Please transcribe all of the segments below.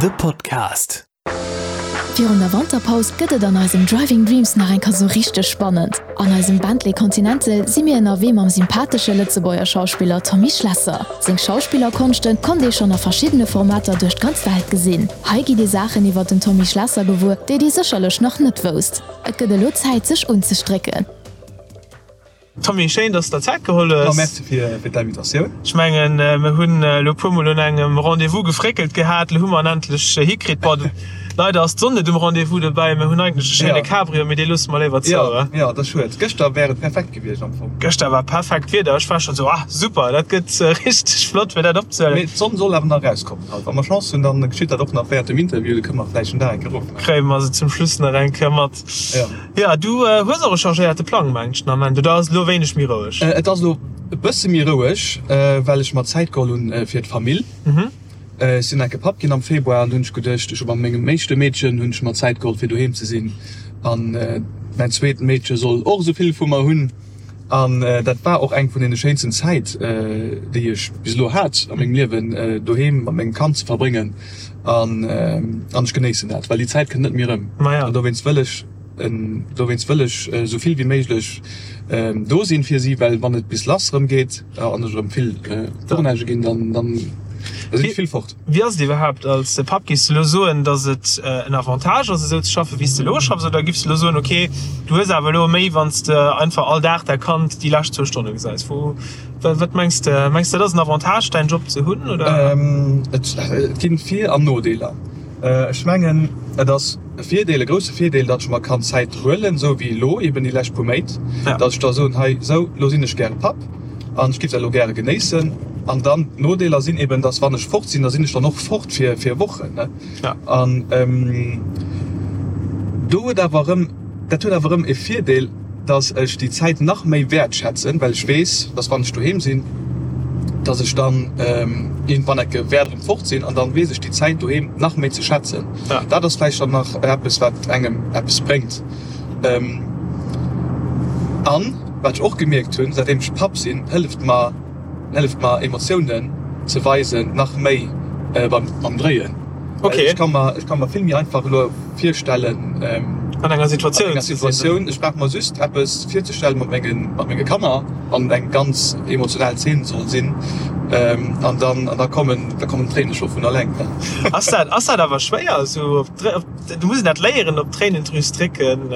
The Podcast. Virun der Wanterpaus gëtt et an eisem Driving Dreams nach eng Kéier sou richteg spannend. An eisem Bentley Continental si mir ënnerwee mam sympathesche Lëtzebuerger Schauspiller Tommy Schlesser. Seng Schauspillerkonschte konnt ee schonn a verschiddene Formater duerch d'ganz Welt gesinn. Hei gitt dir Saachen iwwer den Tommy Schlesser gewuer, déi dir sécherlech nach net wousst. Et gëtt elo Zäit sech unzestrécken. Tommy, schéin dass de der Zäit geholl hues. Jo, merci fir d'Invitatioun. Ech mengen mir hunn elo e puer mol un engem Rendez-vous gefréckelt gehat, elo hu mer en endlech hikritt. Bon, leider ass d'Sonn net um Rendez-vous dobäi, mir hunn eigentlech e schéine Cabrio, mee dee loosse mer léiwer zou, oder? Jo, dat ass schued. Gëschter wär et perfekt gewiescht am Fong. Gëschter war perfekt Wieder, ech war schonn esou, ah super, dat gëtt richteg flott fir dat opzehuelen. Mee d'Sonn soll awer nach erauskommen haut. Wa mer Chance hunn, dann geschitt dat och nach während dem Interview, da kënne mer vläicht en Dag eng Kéier erofmaachen. Kréie mer se zum Schluss nach eng Kéier mat. Jo, du hues och e chargéierte Plang, mengen ech den Ament, oder ass et elo wéineg méi roueg? Et ass elo e bësse méi roueg, well ech mer Zäit geholl hunn fir d'Famill. Ech sinn enke Papp ginn am Februar an do hunn ech geduecht, ech hu mat mengem éischte Meedchen hunn ech mer Zäit geholl fir doheem ze sinn an mäin zweet Meedche soll och esou vill vu mer hunn. An dat war och eng vun deene schéinsten Zäit, déi ech bis elo hat a mengem Liewen, doheem mat mengem Kand ze verbréngen. An ech genéissen dat, well déi Zäit kënnt net méi erëm. An dowéinst wëll ech, dowéinst wëll ech esou vill wéi méiglech do sinn fir si, well wann et bis lass erëm geet an ech erëm vill Tournagë ginn, dann, dann sinn ech vill fort. Wéi ass et iwwerhaapt als Papp? Giffs de elo soen, datt et en Avantage ass esou ze schaffen, wéi s de elo schaffs, oder giffs de elo soen, ok, du hues awer elo méi, wann s de einfach all Dag däi Kand déi lescht zwou Stonne gesäis? Wou, wat mengs de? Mengs de, et ass en Avantage däin Job ze hunn, oder? Et ginn Vir an Nodeeler. Ech mengen, et ass e Virdeel, e grousse Virdeel, datt ech mer kann Zäit huelen, esou wéi elo eben déi lescht puer Méint, datt ech da soen, hei, esou, elo sinn ech gäre Papp. An ech giff dat elo gäre genéissen. An dann d'Nodeeler sinn eben, dass wann ech fort sinn, da sinn ech dann och fort fir fir Wochen, ne? Ja. An do huet awer erëm, dat huet awer erëm e Virdeel, dass ech déi Zäit nach méi wäertschätzen, well ech weess, dass wann ech doheem sinn, dass ech dann iergendwann ecke wäert erëm fort sinn an dann weess ech déi Zäit doheem nach méi ze schätzen. Ja. Dat ass vläicht dann nach eppes, wat engem eppes bréngt. An wat ech och gemierkt hunn, säitdeem ech Papp sinn, hëlleft mer hëlleft mer Emotiounen ze weisen nach méi beim beim Dréien. Okay. Ech ka mer ech ka mer vill méi einfach elo virstellen an enger Situatioun an enger Situatioun, ech brauch mer just eppes virzestellen mat mengen mat menge Kanner, wann et eng ganz emotional Zeen soll sinn, an dann an da kommen da kommen d'Tréine scho vun alleng. Ass dat ass dat awer schwéier esou op Du muss een dat léieren, op d'Tréinendrüs drécken.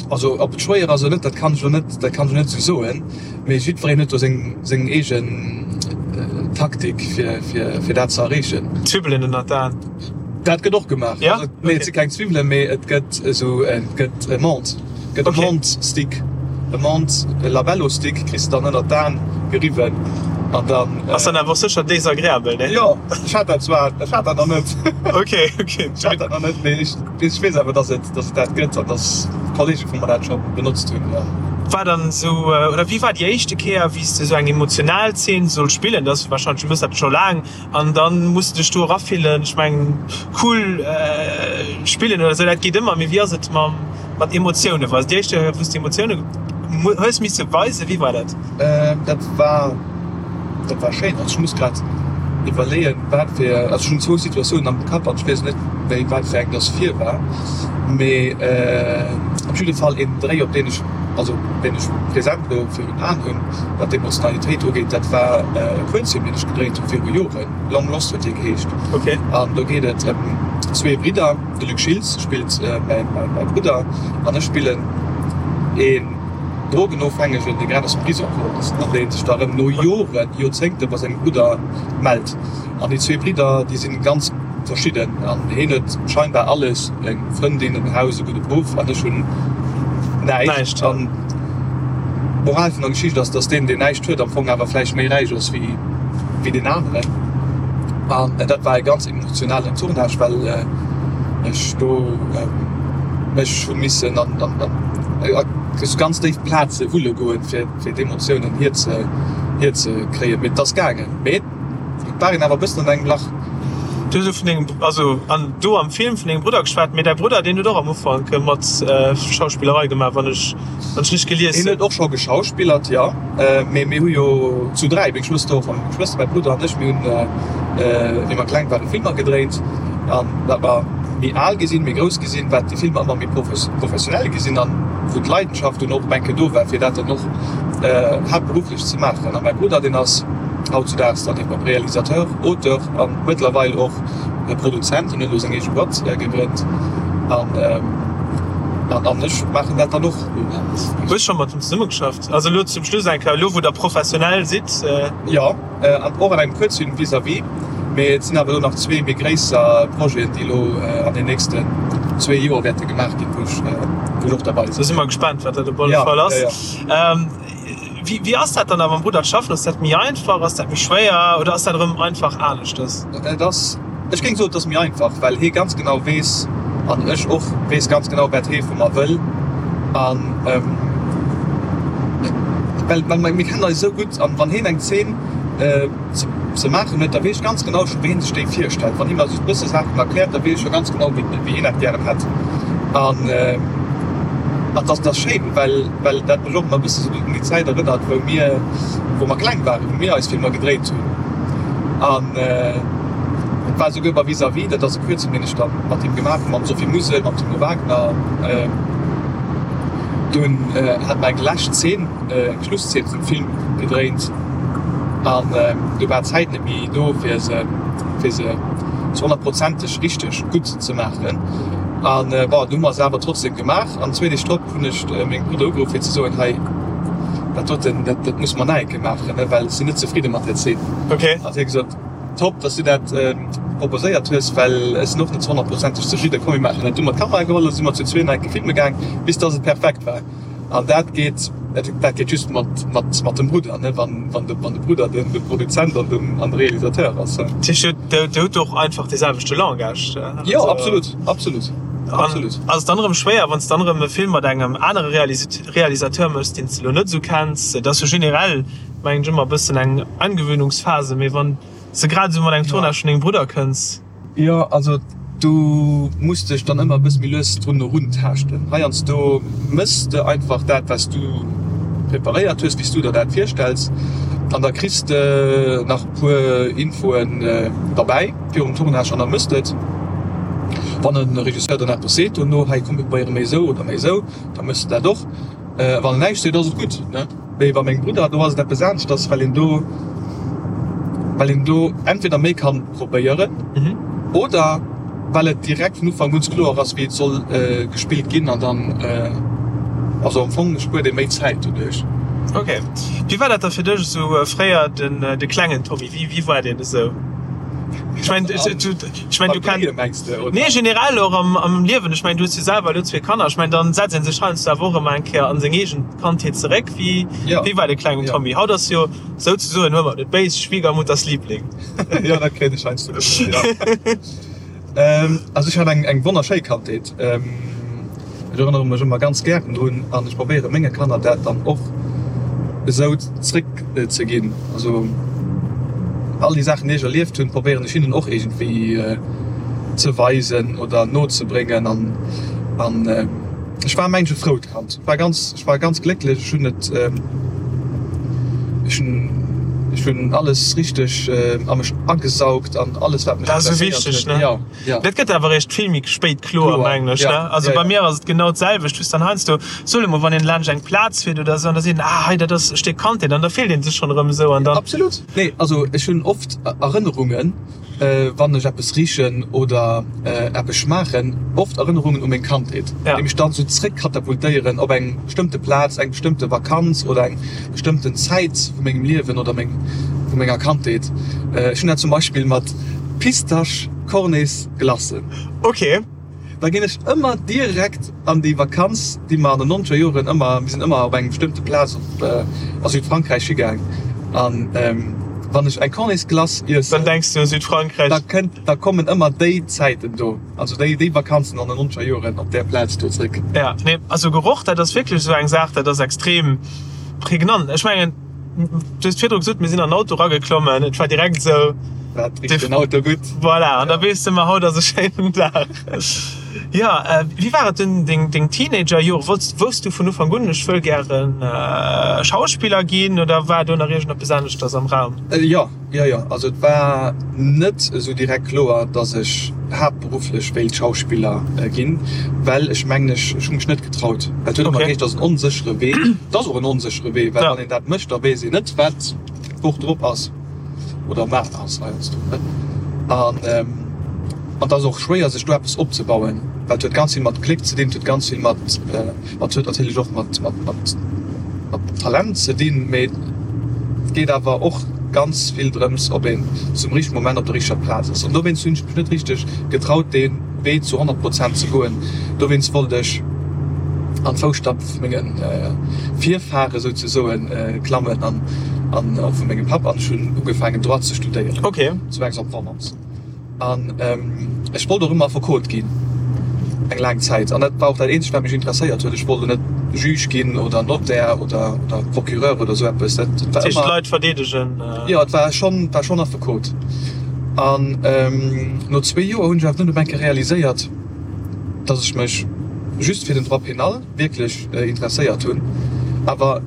Also ob et schwéier ass oder net, dat kann ech elo net, dat kann ech elo net esou soen. Mee jiddwereen huet do seng, seng eegen Taktik fir, fir, fir dat ze erreechen. Zwiwwelen ënnert d'Aen. Dat gëtt och gemaach. Ja? Nee, et si keng Zwiwwelen, mee et gëtt esou, et gëtt e Menthe. Gëtt e Menthe-Stick, e Menthe Labello Stick kriss de dann ënnert d'Aen geriwwen an dann. Ass dann awer och sécher désagréabel, ne? Jo, ech hat dat zwar, ech hat dat nach net. Ok, ok. Ech hat dat nach net, mee ech, ech weess awer, dass et, dass et dat gëtt an dass Kollege vu mer dat scho benotzt hunn, jo. War dann esou, oder wéi war déi éischte Kéier, wéi s de esou eng emotional Zeen solls spillen? Dat ass warscheinlech, du méchs dat scho laang, An dann muss de dech do erafillen. Ech mengen cool spillen oder sou, dat geet ëmmer, mee wéi ass et mam mat Emotiounen weisen? Déi éischt Kéier wou s de Emotiounen hues misse weisen, wéi war dat? Dat war dat war schéin. Also ech muss grad iwwerleeën wat fir, also ech hunn zwou Situatiounen am Kapp an ech weess net méi wat fir eng dass vir war, mee op jidde Fall een Dréi op deen ech, also deen ech present elo virun Aen hunn, Wat d'Emotionalitéit ugeet, dat war e Kuerzfilm, deen ech gedréint hu viru Joren, Long Lost huet dee geheescht. An do geet et ëm zwee Bridder, de Luc Schiltz spillt mäi Brudder an ech spillen een Drogenofhängegen, dee grad aus dem Prisong komm ass an dee sech da erëm no Joren, Joerzéngte bei sengem Brudder mellt. An déi zwee Bridder, déi si ganz verschidden an heen huet scheinbar alles, eng Frëndin, en Haus, e gudde Beruff an ech hunn näischt. An d'Moral vun der Geschicht ass, dass deen, deen näischt huet, am Fong awer vläicht méi räich ass wéi wéi deen aneren. An dat war e ganz emotionalen Tournage, well ech do mech hu missen an an an ganz déif Plaze wulle goen, fir fir d'Emotiounen hier hier ze kréien. Mee et ass gaangen. Mee. Et war een awer e bëssen an engem Lach. Du hues elo vun dengem, also an do am Film vun dengem Brudder geschwat, mee däi Brudder deen huet och am Ufank mat Schauspillerei gemaach, wann ech, wann ech richteg gelies hunn. Hien huet och scho geschauspillert, jo, mee mir hu jo zu 3, meng Schwëster och, meng Schwëster, mäi Brudder an ech, mir hunn. wéi mer kleng waren, Filmer gedréint. An wat mer méi al gi sinn, méi grouss gi sinn, wat déi Filmer ëmmer méi professionell gi sinn an wou d'Leidenschaft dunn och eng Kéier do war, fir dat dann och haaptberufflech ze maachen. A mäi Brudder, deen ass hautzudaags dann eben och Realisateur, Auteur a mëttlerweil och Produzent. Hien huet elo seng eege Boîte gegrënnt an ech maachen dat dann och. Hues scho mat him zesummegeschafft? Also elo zum Schluss eng Kéier, elo wou der professionell sidd? Jo, an och an engem Kuerzfilm Vis-à-vis. Mee et sinn awer elo nach zwee méi gréisser Projeten, déi elo an den nächsten zwee Joer wäerte gemaach ginn, wou ech wou ech och derbei sinn. Da si mer gespaant, wat dat op alle Fall ass. Wéi wéi ass dat dann awer mam Brudder ze schaffen? Ass dat méi einfach, ass dat méi schwéier oder ass dat erëm einfach aneschters? Et ass, ech géing soen, et ass méi einfach, well hie ganz genau weess an ech och weess ganz genau, wat hie vu mer wëll. An well well mir kennen eis esou gutt an wann hien eng Zeen ze maachen huet, da weess ech ganz genau scho wéi hien sech déi virstellt. Wann hie mer just e bësse Saachen erkläert, da weess ech scho ganz genau wéi wéi hien dat gären hätt. An an dat ass schéin, well well dat mech och ëmmer e bësse sou un déi Zäit erënnert, wou mir wou mer kleng waren, wou mir eis Filmer gedréit hunn. An et war esouguer bei Vis-à-vis, dat ass e Kuerzfilm, deen ech da mat him gemaach hunn, mam Sophie Musel, mam Timo Wagner. Dunn hat mer eng lescht Zeen, eng Schlusszeen vum Film gedréint an du war d'Zäit net méi do, fir se fir se zu honnertprozenteg richteg gutt ze maachen. An bon, du hu mer se awer trotzdem gemaach an zwee Deeg drop hunn ech mengem Brudder ugeruff fir ze soen, hei dat doten, dat dat musse mer nach eng Kéier maachen, well ech sinn net zefridde mat där Zeen. Okay. An hie gesot, top, dass du dat proposéiert hues, well ech sinn och net zu honnertprozenteg zefridden. Komm mir maachen dat. Du hu mer d'Kamera geholl a si mer zu zwee nach eng Kéier filme gaang, bis dass et perfekt war. An dat geet, dat geet just mat, mat, mat dem Brudder, ne, wann, wann de, wann de Brudder den, de Produzent an den, an de Realisateur ass. Dat heescht, Dir, Dir hutt och einfach dee selwechte Langage? Jo, absolut, absolut, absolut. An ass et dann erëm schwéier, wann s de dann erëm e Film mat engem anere Realisateur méchs, deen s de elo net esou kenns? Et ass jo generell, mengen ech, ëmmer e bëssen eng Angewöhnungsphase, mee wann s de grad esou mat engem Tournage vun dengem Brudder kënns? Jo, also du muss dech dann ëmmer e bësse méi lues drun eruntaaschten. Heiansdo méchs de einfach dat, wat s du preparéiert hues, wéi s du der dat virstells, an da kriss de nach e puer Infoen derbäi virum Tournage an da méchs de et. Wann e Regisseur dann eppes seet dono, hei komm mir probéiere méi esou oder méi esou, da méchs de dat och. Wann en näischt seet, ass et gutt. Mee bei mengem Brudder, do ass et eppes aneschters, well een do, well een do entweder méi kann probéieren oder well et direkt vun Ufank un kloer ass, wéi et soll gespillt ginn an dann, also am Fong spuert ee méi Zäit doduerch. Ok. Wéi war dat da fir dech esou fréier, den, de klengen Tommy? Wéi, wéi war deen esou? Ech mengen, ech mengen, du kenns. Nee, generell och am, am Liewen. Ech mengen, du hues jo selwer elo zwee Kanner. Ech mengen, dann setzt ee sech heiansdo awer och ëmmer eng Kéier an seng eegen Kandheet zeréck. Wéi, wéi war de klengen Tommy? Haut ass jo souzesoen, huel mer et net béis, Schwiegermutters Liebling. Jo, dat kréien ech heiansdo gesot, jo. Also ech hat eng, eng wonnerschéi Kandheet. Ech erënnere mech ëmmer ganz gären drun an ech probéiere menge Kanner dat dann och esou zréck ze ginn. Also all déi Saachen, déi ech erlieft hunn, probéieren ech hinnen och iergendwéi ze weisen oder nozebréngen. An an ech war mengen ech e frout Kand. Ech war ganz, ech war ganz glécklech. Ech hunn et, ech hunn, ech hunn alles richteg a mech agesaugt an alles wat mech Dat ass esou interesséiert wichteg, huet. ne? Jo. Ja. Dat gëtt awer eréischt vill méi spéit kloer, Kloer, mengen ech, ja, ne? Also ja, bei ja. mir ass et genau d'selwecht, wou s dann heiansdo, soe mol, wann een laanscht eng Plaz fiert oder esou an da seet een, ah hei dat ass e Stéck Kandheet an da fillt een sech schonn erëm esou an dann. Absolut. Nee, also ech hunn oft Erënnerungen, wann ech eppes richen oder eppes schmaachen, oft Erënnerungen u meng Kandheet, Ja. déi mech dann esou zréckkatapultéieren op eng bestëmmte Plaz, eng bestëmmte Vakanz oder eng bestëmmten Zäit vu mengem Liewen oder meng, vu menger Kandheet. Ech hunn dat zum Beispill mat Pistasch Cornets Glacen. Ok. Da ginn ech ëmmer direkt an déi Vakanz, déi mer an den nonzeger Joren ëmmer, mir sinn ëmmer op eng bestëmmte Plaz op a Südfrankräich higaang an wann ech eng Cornets Glace iessen, Dann denks du u Südfrankräich. da kënnt, da kommen ëmmer déi Zäiten do, also déi, déi Vakanzen an den nonzeger Joren op där Plaz do zréck. Ja, nee, also Geroch, dat ass wierklech esou eng Saach, dat ass extrem prägnant. Ech mengen, Du hues virdru gesot, mir sinn an den Auto erageklommen, et war direkt esou. Dat richt den Auto gutt. Voilà, an da weess de, ma haut ass e schéinen Dag. Jo, wéi war et dunn deng deng Teenagerjore? Wollts, wousst du vun Ufank un, ech wëll gären Schauspiller ginn oder war do nach iergendeppes aneschters am Raum? Jo, jo, jo. Also et war net esou direkt kloer, datt ech haaptberufflech wéilt Schauspiller ginn, well ech mengen ech ech hu mech net getraut. Well et huet ëmmer geheescht, et ass en onséchere Wee. Et ass och en onséchere Wee, well wann een dat mécht, da weess een net, wat d'Woch drop ass. Oder mar ass heiansdo, ne? An an et ass och schwéier sech do eppes opzebauen, well et huet ganz vill mat Gléck ze dinn, et huet ganz vill mat mat huet natierlech och mat mat mat mat Talent ze dinn, mee et geet awer och ganz vill drëms, ob een zum richtege Moment op der richteger Plaz ass. An dowéinst hunn ech mech net richteg getraut dee Wee zu 100 Prozent ze goen. Dowéinst wollt ech an d'Fousstapp vu menge Virfahre souzesoen klammen an an och vu mengem Papp an ech hunn ugefaangen Droit ze studéieren okay. zu Aix-en-Provence. An ech wollt och ëmmer Affekot ginn eng laang Zäit an dat war och dat eenzegt wat mech interesséiert huet. Ech wollt elo net Juge ginn oder Notaire oder oder Procureur oder esou eppes. Dat war ëmmer. D'Leit verdeedegen. Jo, et war schonn war schonn Affekot. An no zwee Joer hunn ech awer dunn op eng Kéier realiséiert, dass ech mech just fir den Droit pénal wierklech interesséiert hunn, awer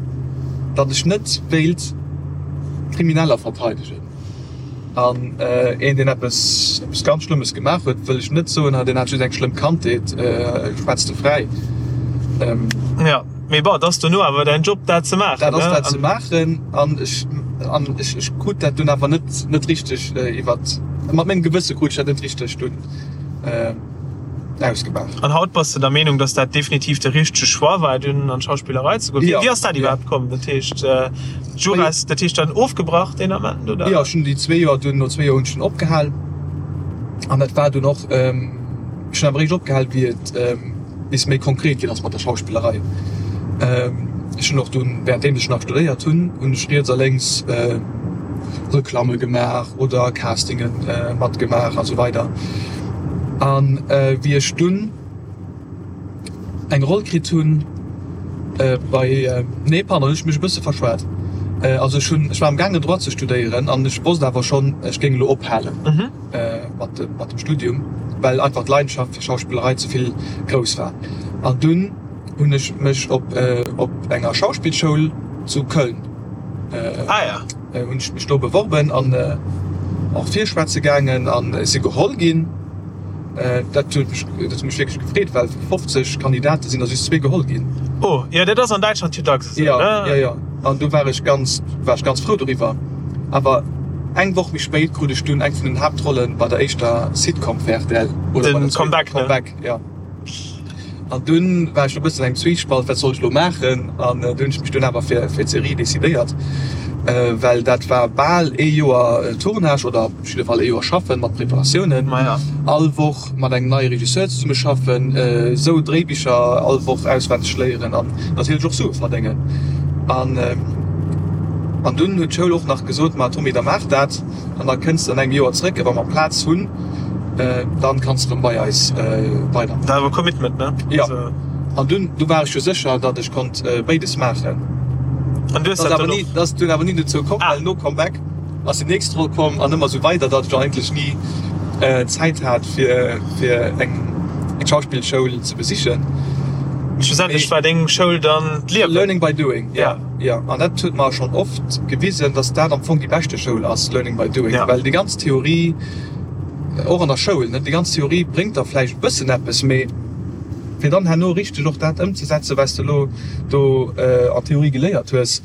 datt ech net wéilt Krimineller verteidegen. An een, deen eppes eppes ganz Schlëmmes gemaach huet, wëll ech net soen, deen hat just eng schlëmm Kandheet, schwätz de fräi. Jo, mee bon, et ass dono awer däin Job, dat ze maachen, Dat ass dat ze maachen an ech an ech ech krut dat dunn awer net net richteg iwwert, mat mengem Gewësse krut ech dat net richteg dunn. Ausgemaach. An haut bass de der Meenung, dass dat definitiv de richtege Choix war, dunn an d'Schauspillerei ze goen? Wéi ass dat iwwerhaapt komm? Dat heescht, Juras, dat heescht dann ofgebrach deen Ament, oder? Jo, ech hunn déi zwee Joer dunn, no zwee Joer hunn ech dunn opgehal. An dat war dunn och, ech hunn awer eréischt opgehal, wéi et bis méi konkret ginn ass mat der Schauspillerei. Ech hunn och dunn, wärenddeem ech nach studéiert hunn, hunn ech riets a lénks Reklamme gemaach oder Castinge matgemaach a sou weider. An wéi ech dunn eng Roll kritt hunn bei, nee pardon, hunn ech mech e bësse verschwat. Also ech hunn, ech war am gaangen Droit ze studéieren an ech wosst awer schonn, ech géing elo ophalen. Mat dem Studium, well einfach d'Leidenschaft fir Schauspillerei ze vill grouss war. An dunn hunn ech mech op op enger Schauspillschoul zu Köln hunn ech mech do beworben an och virschwätze gaangen an ech si geholl ginn. Dat huet mech dat huet mech wierklech gefreet, well vu 50 Kandidate sinn der just zwee geholl ginn. Oh jo, dat ass an Däitschland jo dacks esou, ne? Jo, jo. An du war ech ganz, war ech ganz frou doriwwer. Awer eng Woch méi spéit krut ech dunn eng vun den Haaptrollen bei der éischter Sitcom fir rtl. Oder bei der Comeback, ne? Comeback, jo. An dunn war ech e bëssen engem Zwiespalt, wat soll ech elo maachen? An du hunn ech mech dunn awer fir fir d'Serie decidéiert, well dat war bal ee Joer Tournage oder op jidde Fall ee Joer schaffen mat Preparatiounen. All Woch mat engem neie Regisseur zesumme schaffen, esou Dréibicher all Woch auswenneg léieren an natierlech och Sue verdéngen. An an dunn huet d'Schoul och nach gesot, Ma Tommy, da maach dat an da kënns de an engem Joer zréck a wa mer Plaz hunn, dann kanns de erëm bei eis weidermaachen. Dat war awer Commitment, ne? Jo. An dunn, du war ech jo sécher, datt ech konnt béides maachen. An du hues dat dann och? Dat ass dunn awer ni dozou komm, well no Comeback ass déi nächst Roll komm an ëmmer esou weider, datt ech eigentlech ni Zäit hat fir fir eng eng Schauspillschoul ze besichen. Schlussendlech war deng Schoul dann d'Liewen. Learning by doing, ja, ja. An dat huet mer schonn oft gewisen, datt dat am Fong déi beschte Schoul ass, learning by doing, well déi ganz Theorie, och an der Schoul, ne, déi ganz Theorie bréngt der vläicht e bëssen eppes, mee fir dann herno richteg och dat ëmzesetzen, wat s de elo do an Theorie geléiert hues,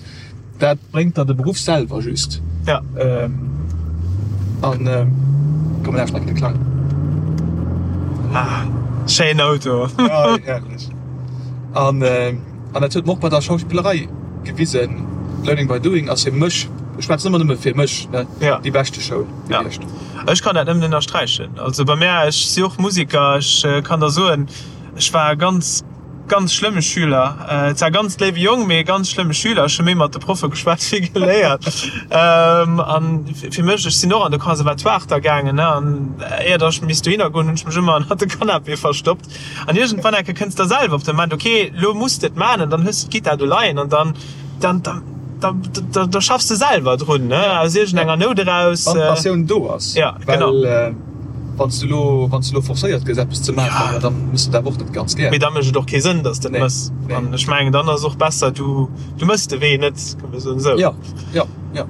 Dat bréngt der de Beruff selwer just. Ja. An komm mir lauschteren de Klang. Ah, schéinen Auto. Ja, herrlech. An an dat huet mer och bei der Schauspillerei gewisen, Learning by doing ass fir mech, ech schwätzen ëmmer nëmme fir mech, ne, Ja. déi beschte Schoul gewiescht. Ja. Ech kann dat nëmmen ënnersträichen. Also bei mär, ech si och Musiker, ech kann der soen, ech war ganz Ganz schlëmme Schüler. Zwar ganz léiwe Jong, mee ganz schlëmme Schüler. Ech hu méi mat de Proffe geschwat wéi geléiert. An fir mech, ech sinn och an de Conservatoire da gaangen, ne, an éier datt ech misst dohinner goen, hunn ech mech ëmmer ënnert de Canapé verstoppt. An iergendwann enke kënns der selwer op de Moment, ok, lo muss de et maachen, an dann hues de d'Gittar do leien an dann, dann, dann, da, da schaffs de selwer drun, ne, aus iergendenger Nout eraus. Wann d'Passioun do ass. Ja, genau. Well. Wann s du elo, wann s du elo forcéiert gëss eppes ze maachen, jo, dann mëss de dat awer och net ganz gär. Mee da mécht et och kee Sënn, dass de et mëss. An ech mengen, dann ass och besser, du, du mëss de Wee net, kann ee soen esou. Jo, jo, jo.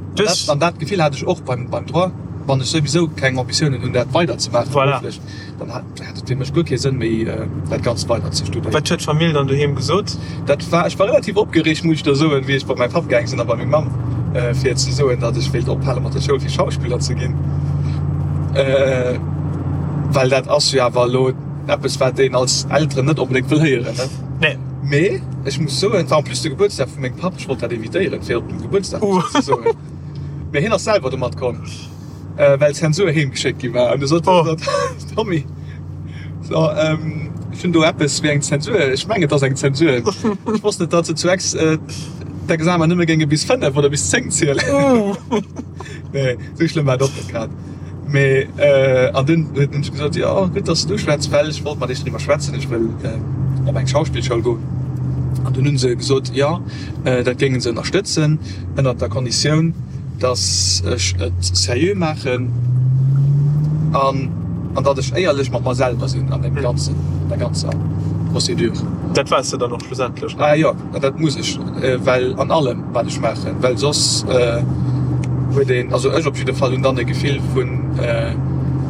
An dat Gefill hat ech och beim, beim Droit, wann ech souwisou keng Ambitiounen hunn, dat weider ze maachen berufflech, dann hat et fir mech guer kee Sënn méi, dat Ganzt weider ze studéieren. Wat huet d'Famill dann doheem gesot? Dat war, ech war relativ opgereegt, muss ech der soen, wéi ech bei mäi Papp gaang sinn a bei meng Mamm, fir ze soen, datt ech wéilt ophale mat der Schoul fir Schauspiller ze ginn. Well dat ass jo awer elo eppes, wat een als Elteren net onbedéngt wëll héieren, ne? Nee. Mee ech muss soen, et war en plus de Gebuertsdag vu mengem Papp, ech wollt dat evitéieren, fir op dem Gebuertsdag ze soen. Mee hien ass selwer domat komm. Well d'Zensur heem geschéckt gi war. An du sot oh. Tommy, so, ähm, ech hunn do eppes wéi eng Zensur. Ech mengen et ass eng Zensur. Ech wosst net, datt se zu Aix äh, d'Examen nëmme géinge bis 5 oder bis 10 zielen. Oh. Nee, sou schlëmm war et och net grad. Mee äh, an dunn huet en gesot, jo gutt, datt s du schwätz, well ech wollt mat iech driwwer schwätzen, ech wëll äh, op eng Schauspillschoul goen. An dunn hunn se gesot, jo, äh, dat géinge se ënnerstëtzen, ënnert der Konditioun, dass ech et seriö maachen an an datt ech éierlech mat mer selwer sinn an deem ganzen, an der ganzer Procédure. Dat waars de dann och schlussendlech, ne? Ah jo, dat muss ech, well an allem wat ech maachen, well soss huet een, also ech op jidde Fall hunn dann e Gefill vun,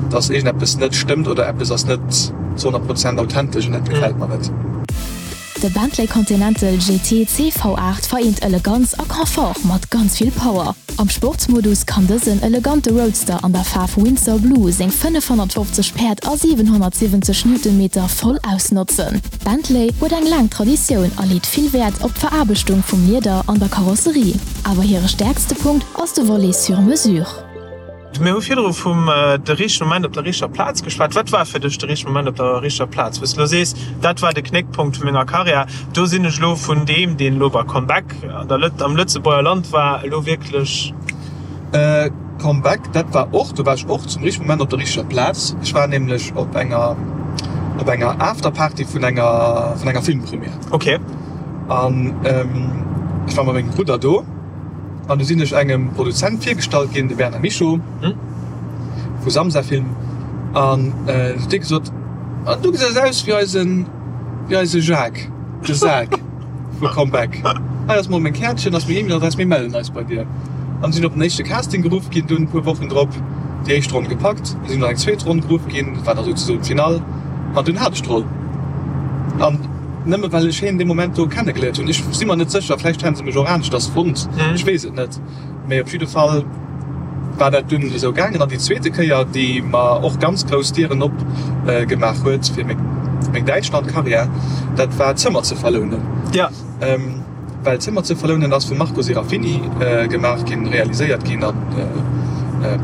dass iergendeppes net stëmmt oder eppes ass net zu 100 Prozent authentesch an dat gefält mer net. De Bentley Continental GT CV8 vereent Eleganz a Confort mat ganz vill Power. Am Sportsmodus kann dësen elegante Roadster an der Faarf Windsor Blue seng 550 Päerd a 770 Newtonmeter voll ausnotzen. Bentley huet eng laang Traditioun a leet vill Wäert op d'Veraarbechtung vum Lieder an der Karosserie. Awer hire stäerkste Punkt ass de Volet sur mesure. Mir hu virdru vum de richtege Moment op der richteger Plaz geschwat. Wat war fir dech de richtege Moment op der richteger Plaz, wou s de elo sees, dat war de Knéckpunkt vu menger Karriär, do sinn ech elo vun deem, deen elo bei Comeback an der Lët, am Lëtzebuerger Land war, elo wierklech. Comeback, dat war och, do war ech och zum richtege Moment op der richteger Plaz. Ech war nämlech op enger, op enger Afterparty vun enger, vun enger Filmpremière. Okay. An ech war mat mengem Brudder do. An du sinn ech engem Produzent virgestallt ginn, de Bernard Michaux vu Samsa Film. An du huet dee gesot, An du gesäis aus wéi eisen, wéi eise Jacques, de Sak vu Comeback. Hei ass mol meng Käertchen, ass meng E-Mail-Adress, mir mellen eis bei dir. An sinn op den éischte Casting geruff ginn, dunn e puer Wochen drop déi éischt Ronn gepackt, sinn an eng zweet Ronn geruff ginn, dat war da souzesoen d'Finall, an dunn hat ech d'Roll. An. Nëmme well ech hien dee Moment do kennegeléiert hunn. Ech si mer net sécher, vläicht hätten se mech och aneschters fonnt, ech weess et net. Mee op jidde Fall war dat dunn esou gaangen. An déi zweete Kéier, déi mer och ganz grouss Dieren op gemaach huet fir meng meng Däitschland-Karriär, dat war Zëmmer ze verlounen. Well Zëmmer ze verlounen ass vum Marco Serafini gemaach ginn, realiséiert ginn a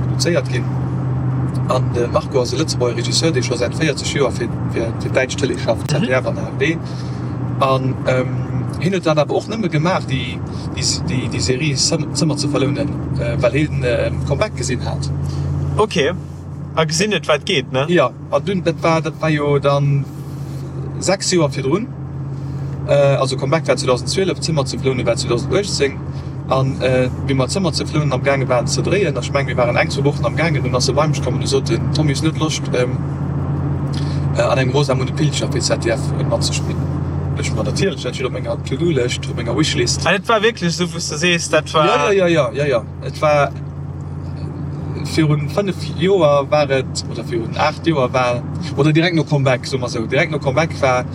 produzéiert ginn. An de Marco ass e Lëtzebuerger Regisseur, dee scho säit 40 Joer fir d'däitsch Tëlee schafft, ZDF an ARD. An hien huet dat awer och nëmme gemaach, déi Serie Zëmmer ze verlounen, well hien Comeback gesinn hat. Ok, a gesinn huet, wat geet, ne? Jo. An dunn, dat war, dat war jo dann 6 Joer virdrun, also Comeback war 2012, Zimmer zu Vlounen war 2018. An wéi mer Zëmmer zu Vlounen am gaange waren ze dréien, ech mengen mir waren eng, zwou Wochen am gaangen, dunn ass e bei mech komm an e sot, den Tommy, hues du net Loscht an engem Rosamunde Pilcher fir ZDF matzespillen? Ech, ma natierlech, dat steet op menger To-Do-Lëscht, op menger Wishlist. An et war wierklech esou, wou s de sees, dat war. Jo, jo, jo, jo, jo, et war. Virun 5 Joer war et, oder virun 8 Joer war, oder direkt no Comeback, soe mer esou, direkt no Comeback war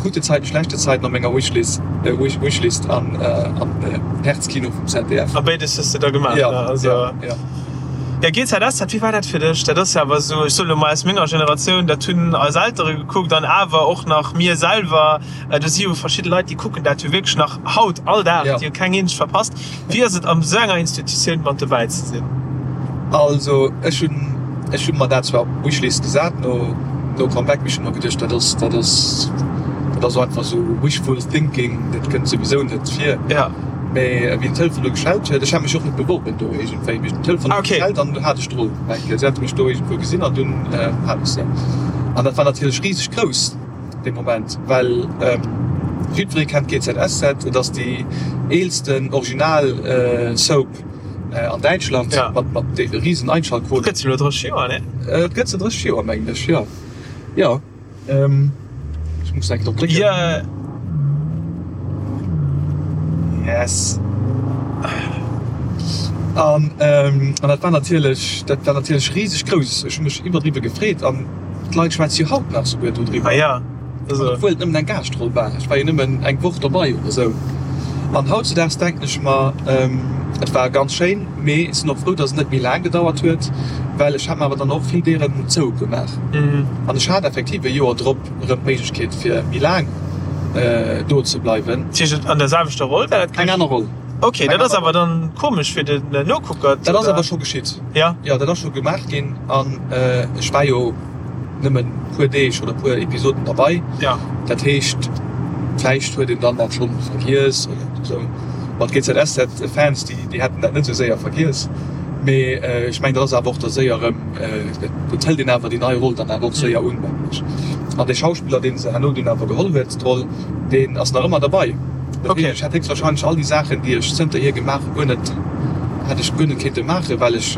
Gute Zeiten, schlechte Zeiten op menger Wishlist, Wishlist an Herzkino vum ZDF. A béides hues de da gemaach, ne? Also. Jo, jo. Jo, GZSZ, wéi war dat fir dech? Dat ass jo awer esou, ech soe lo mol aus menger Generatioun, dat hunn eis Eltere gekuckt an awer och nach mir selwer. Do si jo verschidde Leit, déi kucken dat jo wierklech nach haut all Dag, déi hu keng eenzeg verpasst. Wéi ass et an esou enger Institutioun mat dobäi ze sinn? Also ech hunn, ech hunn mer dat zwar op d'Wishlist gesat no no Comeback, mee ech hunn mer geduecht, dat ass, dat ass, dat ass einfach esou wishful thinking, dat kënnt souwisou net vir. Ja. Mee wéi den Telefon du geschellt huet, ech hat mech och net beworben do iergendwéi, mee den Telefon huet geschellt an du hat ech d'Roll. Si hate mech do iergendwou gesinn an dunn hat ech se. An dat war natierlech riseg grouss. Dee Moment, well jiddweree kennt GZSZ, et ass déi eelsten original Soap. an Däitschland mat mat de riesen Einschaltquoten. Gëtt se elo 30 Joer, ne? Et gëtt se 30 Joer, mengen ech, jo. Jo. Ech muss enk drop drécken. Jo. Yes. An an dat war natierlech, dat war natierlech riseg grouss. Ech hu mech iwwerdriwwe gefreet an d'Leit schwätze jo haut nach souguer dodriwwer. Ah ja. Also. Obwuel et nëmmen eng Gaaschtroll war. Ech war jo nëmmen eng Woch dobei oder sou. An hautzedaags denken ech mer, et war ganz schéin, mee ech sinn och frou, dass et net méi laang gedauert huet, well ech hat mer awer dann och vill Dieren zougemaach. An ech hat effektiv e Joer drop erëm d'Méiglechkeet fir méi laang do ze bleiwen. Dat heescht an der selwechter Roll war dat? Eng aner Roll. Ok, dat ass awer dann komesch fir den Nokucker. Dat ass awer scho geschitt. Jo. Jo, dat ass scho gemaach ginn an ech war jo. nëmmen puer Deeg oder puer Episoden derbei. Ja. Dat heescht, vläicht huet een dann dat schonn vergiess oder esou. Ma d'GZSZ-Fans, déi, déi hätten dat net esou séier vergiess. Mee ech mengen, dat ass awer och da séier erëm, et hëlt een awer déi nei Roll dann awer och séier un, mengen ech. An dee Schauspiller, dee se herno dunn awer geholl huet, d'Roll, deen ass nach ëmmer derbei. Dat heescht, ech hätt héchstwahrscheinlech all déi Saachen, déi ech zënterhier gemaach hu, guer net, hätt ech guer net kéinte maachen, well ech,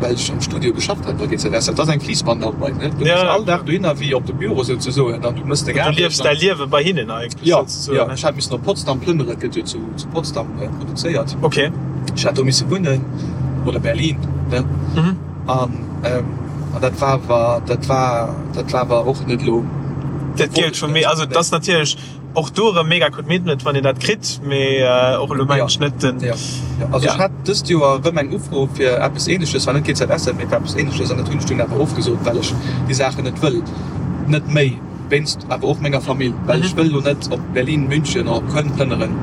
well ech am Studio geschafft hat bei GZS. Dat ass eng Fliissbandarbeit, ne? Du gees all Dag dohinner wéi op de Büro souzesoen an du mëss deng Aarbecht. Du liefs däi Liewe bei hinnen eigentlech souzesoen, ne? Jo, jo. Ech hat missen op Potsdam plënneren, et gëtt jo zu Potsdam produzéiert. Ok. Ech hat do misse wunnen, oder Berlin, ne? An dat war awer, dat war, dat war awer och net elo. Dat gëllt vu mir. Also et ass natierlech. Och do erëm mega Commitment wann een dat kritt, mee och elo mengen ech net den. Jo, also ech hat dëst Joer erëm eng Ufro fir eppes Ähnleches, zwar net GZSZ, mee fir eppes Ähnleches an dat hunn ech dunn awer ofgesot, well ech déi Saachen net wëll, net méi, wéinst awer och menger Famill, well ech wëll elo net op Berlin, München oder op Köln plënneren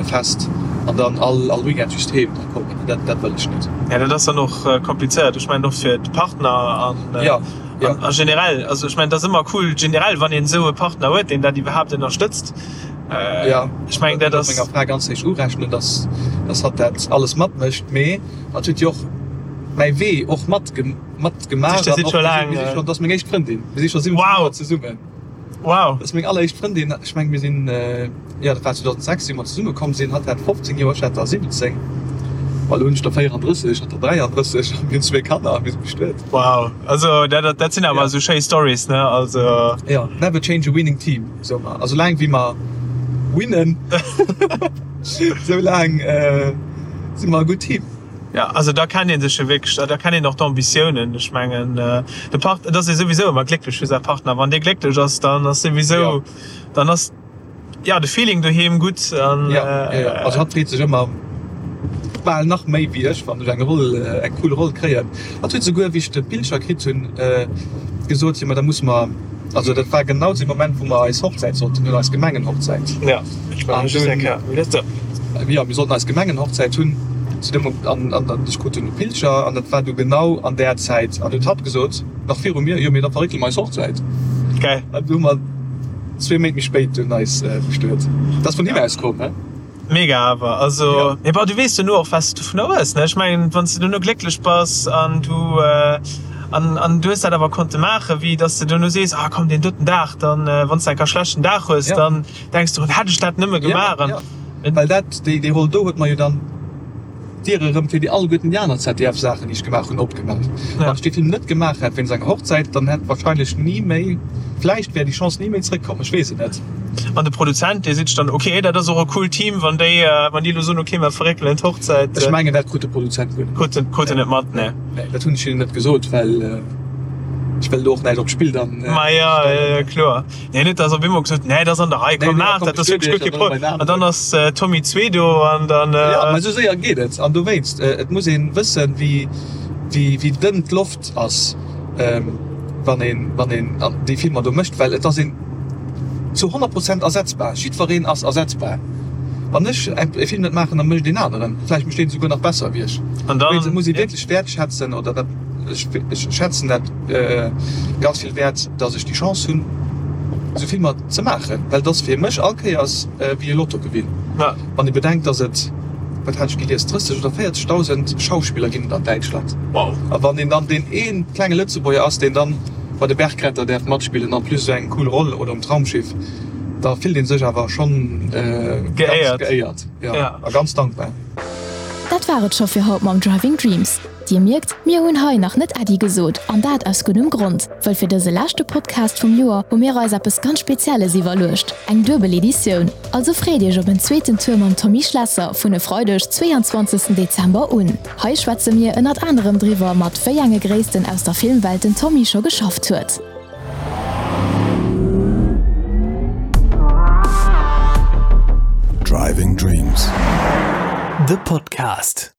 fest an dann all all Weekend just heem da kommen, dat dat wëll ech net. Jo, dat ass dann och komplizéiert, ech mengen och fir d'Partner an. Jo. Ja. A generell, also ech mengen, dat ass ëmmer cool generell, wann een esou e Partner huet, deen dat iwwerhaapt ënnerstëtzt. Ja, ech mengen, dat ass. Menger Fra ganz héich urechnen, dass, dass hatt dat alles matmécht, mee hatt huet jo och mäi Wee och mat matgemaach. Dir sidd scho laang. Mir si scho, dat ass meng éischt Frëndin. Mir si scho 17 Joer zesummen. Wow. Dat ass meng alleréischt Frëndin. Ech mengen, mir sinn, jo, dat war 2006, wéi mer zesumme komm sinn. Hatt hat 15 Joer, ech hat der 17. Bon, elo hunn ech der 34, hatt der 33 a mir hunn zwee Kanner a mir si bestuet. Wow, also dat, dat sinn awer esou schéi Stories, ne? Also. Jo, never change a winning team, soe mer. A soulaang wéi mer winnen, soulaang si mer e gutt Team. Jo, also da kennt ee sech jo wierklech, da kennt een och d'Ambitiounen. Ech mengen, de Part, et ass ee souwisou ëmmer glécklech fir säi Partner. Wann dee glécklech ass, dann ass souwisou, dann ass, jo, de Feeling doheem gutt an. Jo, jo, jo. Also hatt freet sech ëmmer bal nach méi wéi ech, wann ech eng Roll, eng cool Roll kréien. Hatt huet souguer, wéi ech de Pilcher kritt hunn, gesot, jo, ma da musse mer, also dat war genau zu deem Moment, wou mer eis Hochzäit sollten hunn, eis Gemengenhochzäit. Jo, ech war just eng Kéier, wéi dat. Jo, mir sollten eis Gemengenhochzäit hunn zu deem Moment, an an ech krut dunn e Pilcher an dat war du genau an där Zäit an huet hatt gesot, nach viru mir, jo, mee da verréckele mer eis Hochzäit. Geil. An du hu mer zwee Méint méi spéit dunn eis bestuet. Dat ass vun him aus komm, he? Mega awer, also, mee bon, du weess duerno och, wat s de dovunner hues, ne? Ech mengen, wann s de duerno glécklech bass an du an an du hues dat awer konnte maachen, wéi dass de duerno sees, ah komm, deen doten Dag, dann, wann s de enker e schlechten Dag hues, dann denks du, hätt ech dat nëmme gemaach an. Ja, ja, well dat, déi, déi Roll do huet mer jo dann d'Diere erëm fir déi alleguerten déi aner ZDF-Saachen, déi ech gemaach hunn, opgemaach. Wann ech dee Film net gemaach hätt wéinst enger Hochzäit, dann hätt wahrscheinlech ni méi, vläicht wär déi Chance ni méi zréckkomm, ech weess et net. An de Produzent, dee seet sech dann, ok, dat ass och e coolt Team, wann déi, wann déi elo soen, ok, mer verréckelen d'Hochzäit. Ech mengen, dat krut de Produzent guer net mat. Krut en, krut en net mat, nee. Nee, dat hunn ech hinnen net gesot, well ech wëll do och näischt op d'Spill dann Ma jo, jo, jo, kloer. Nee, net dass op eemol gesot, nee, dat ass an der Rei, komm maach dat, dat ass wierklech guer kee Problem. An dann ass Tommy 2 do an dann. Jo, mä esou séier geet et. An dowéinst, et muss ee wëssen, wéi, wéi, wéi dënn d'Loft ass, wann een, wann een déi Filmer do mécht, well et ass een zu 100 Prozent ersetzbar. Jiddwereen ass ersetzbar. Wann ech e Film net maachen, da mécht een aneren. Vläicht mécht deen esouguer nach besser wéi ech. An dann. Dowéinst, et muss ee wierklech wäertschätzen oder dat, ech, ech schätzen dat ganz vill wäert, dass ech déi Chance hunn, esou Filmer ze maachen, well et ass fir mech all Kéiers wéi e Lottogewinn. Wann ee bedenkt, dass et, wat hat ech gelies, 30 oder 40.000 Schauspiller ginn et an Däitschland. A wann een dann deen ee klenge Lëtzebuerger ass, deen dann bei de Bergretter däerf matspillen, en plus esou eng cool Roll oder um Traumschiff, da fillt ee sech awer schonn ganz geéiert a ganz dankbar. Dat war et scho fir haut mam Driving Dreams. Dir mierkt, mir hunn hei nach net Äddi gesot, an dat aus guddem Grond, wëll fir dëse leschte Podcast vum Joer hu mir eis eppes ganz Spezielles iwwerluecht, eng duebel Editioun. Also freet iech op en zweeten Tour mam Tommy Schlesser vun e Freideg, 22 Dezember un. Hei schwätze mir ënnert anerem driwwer, mat wéi enge Gréissten aus der Filmwelt den Tommy scho geschafft huet. Driving Dreams, de Podcast.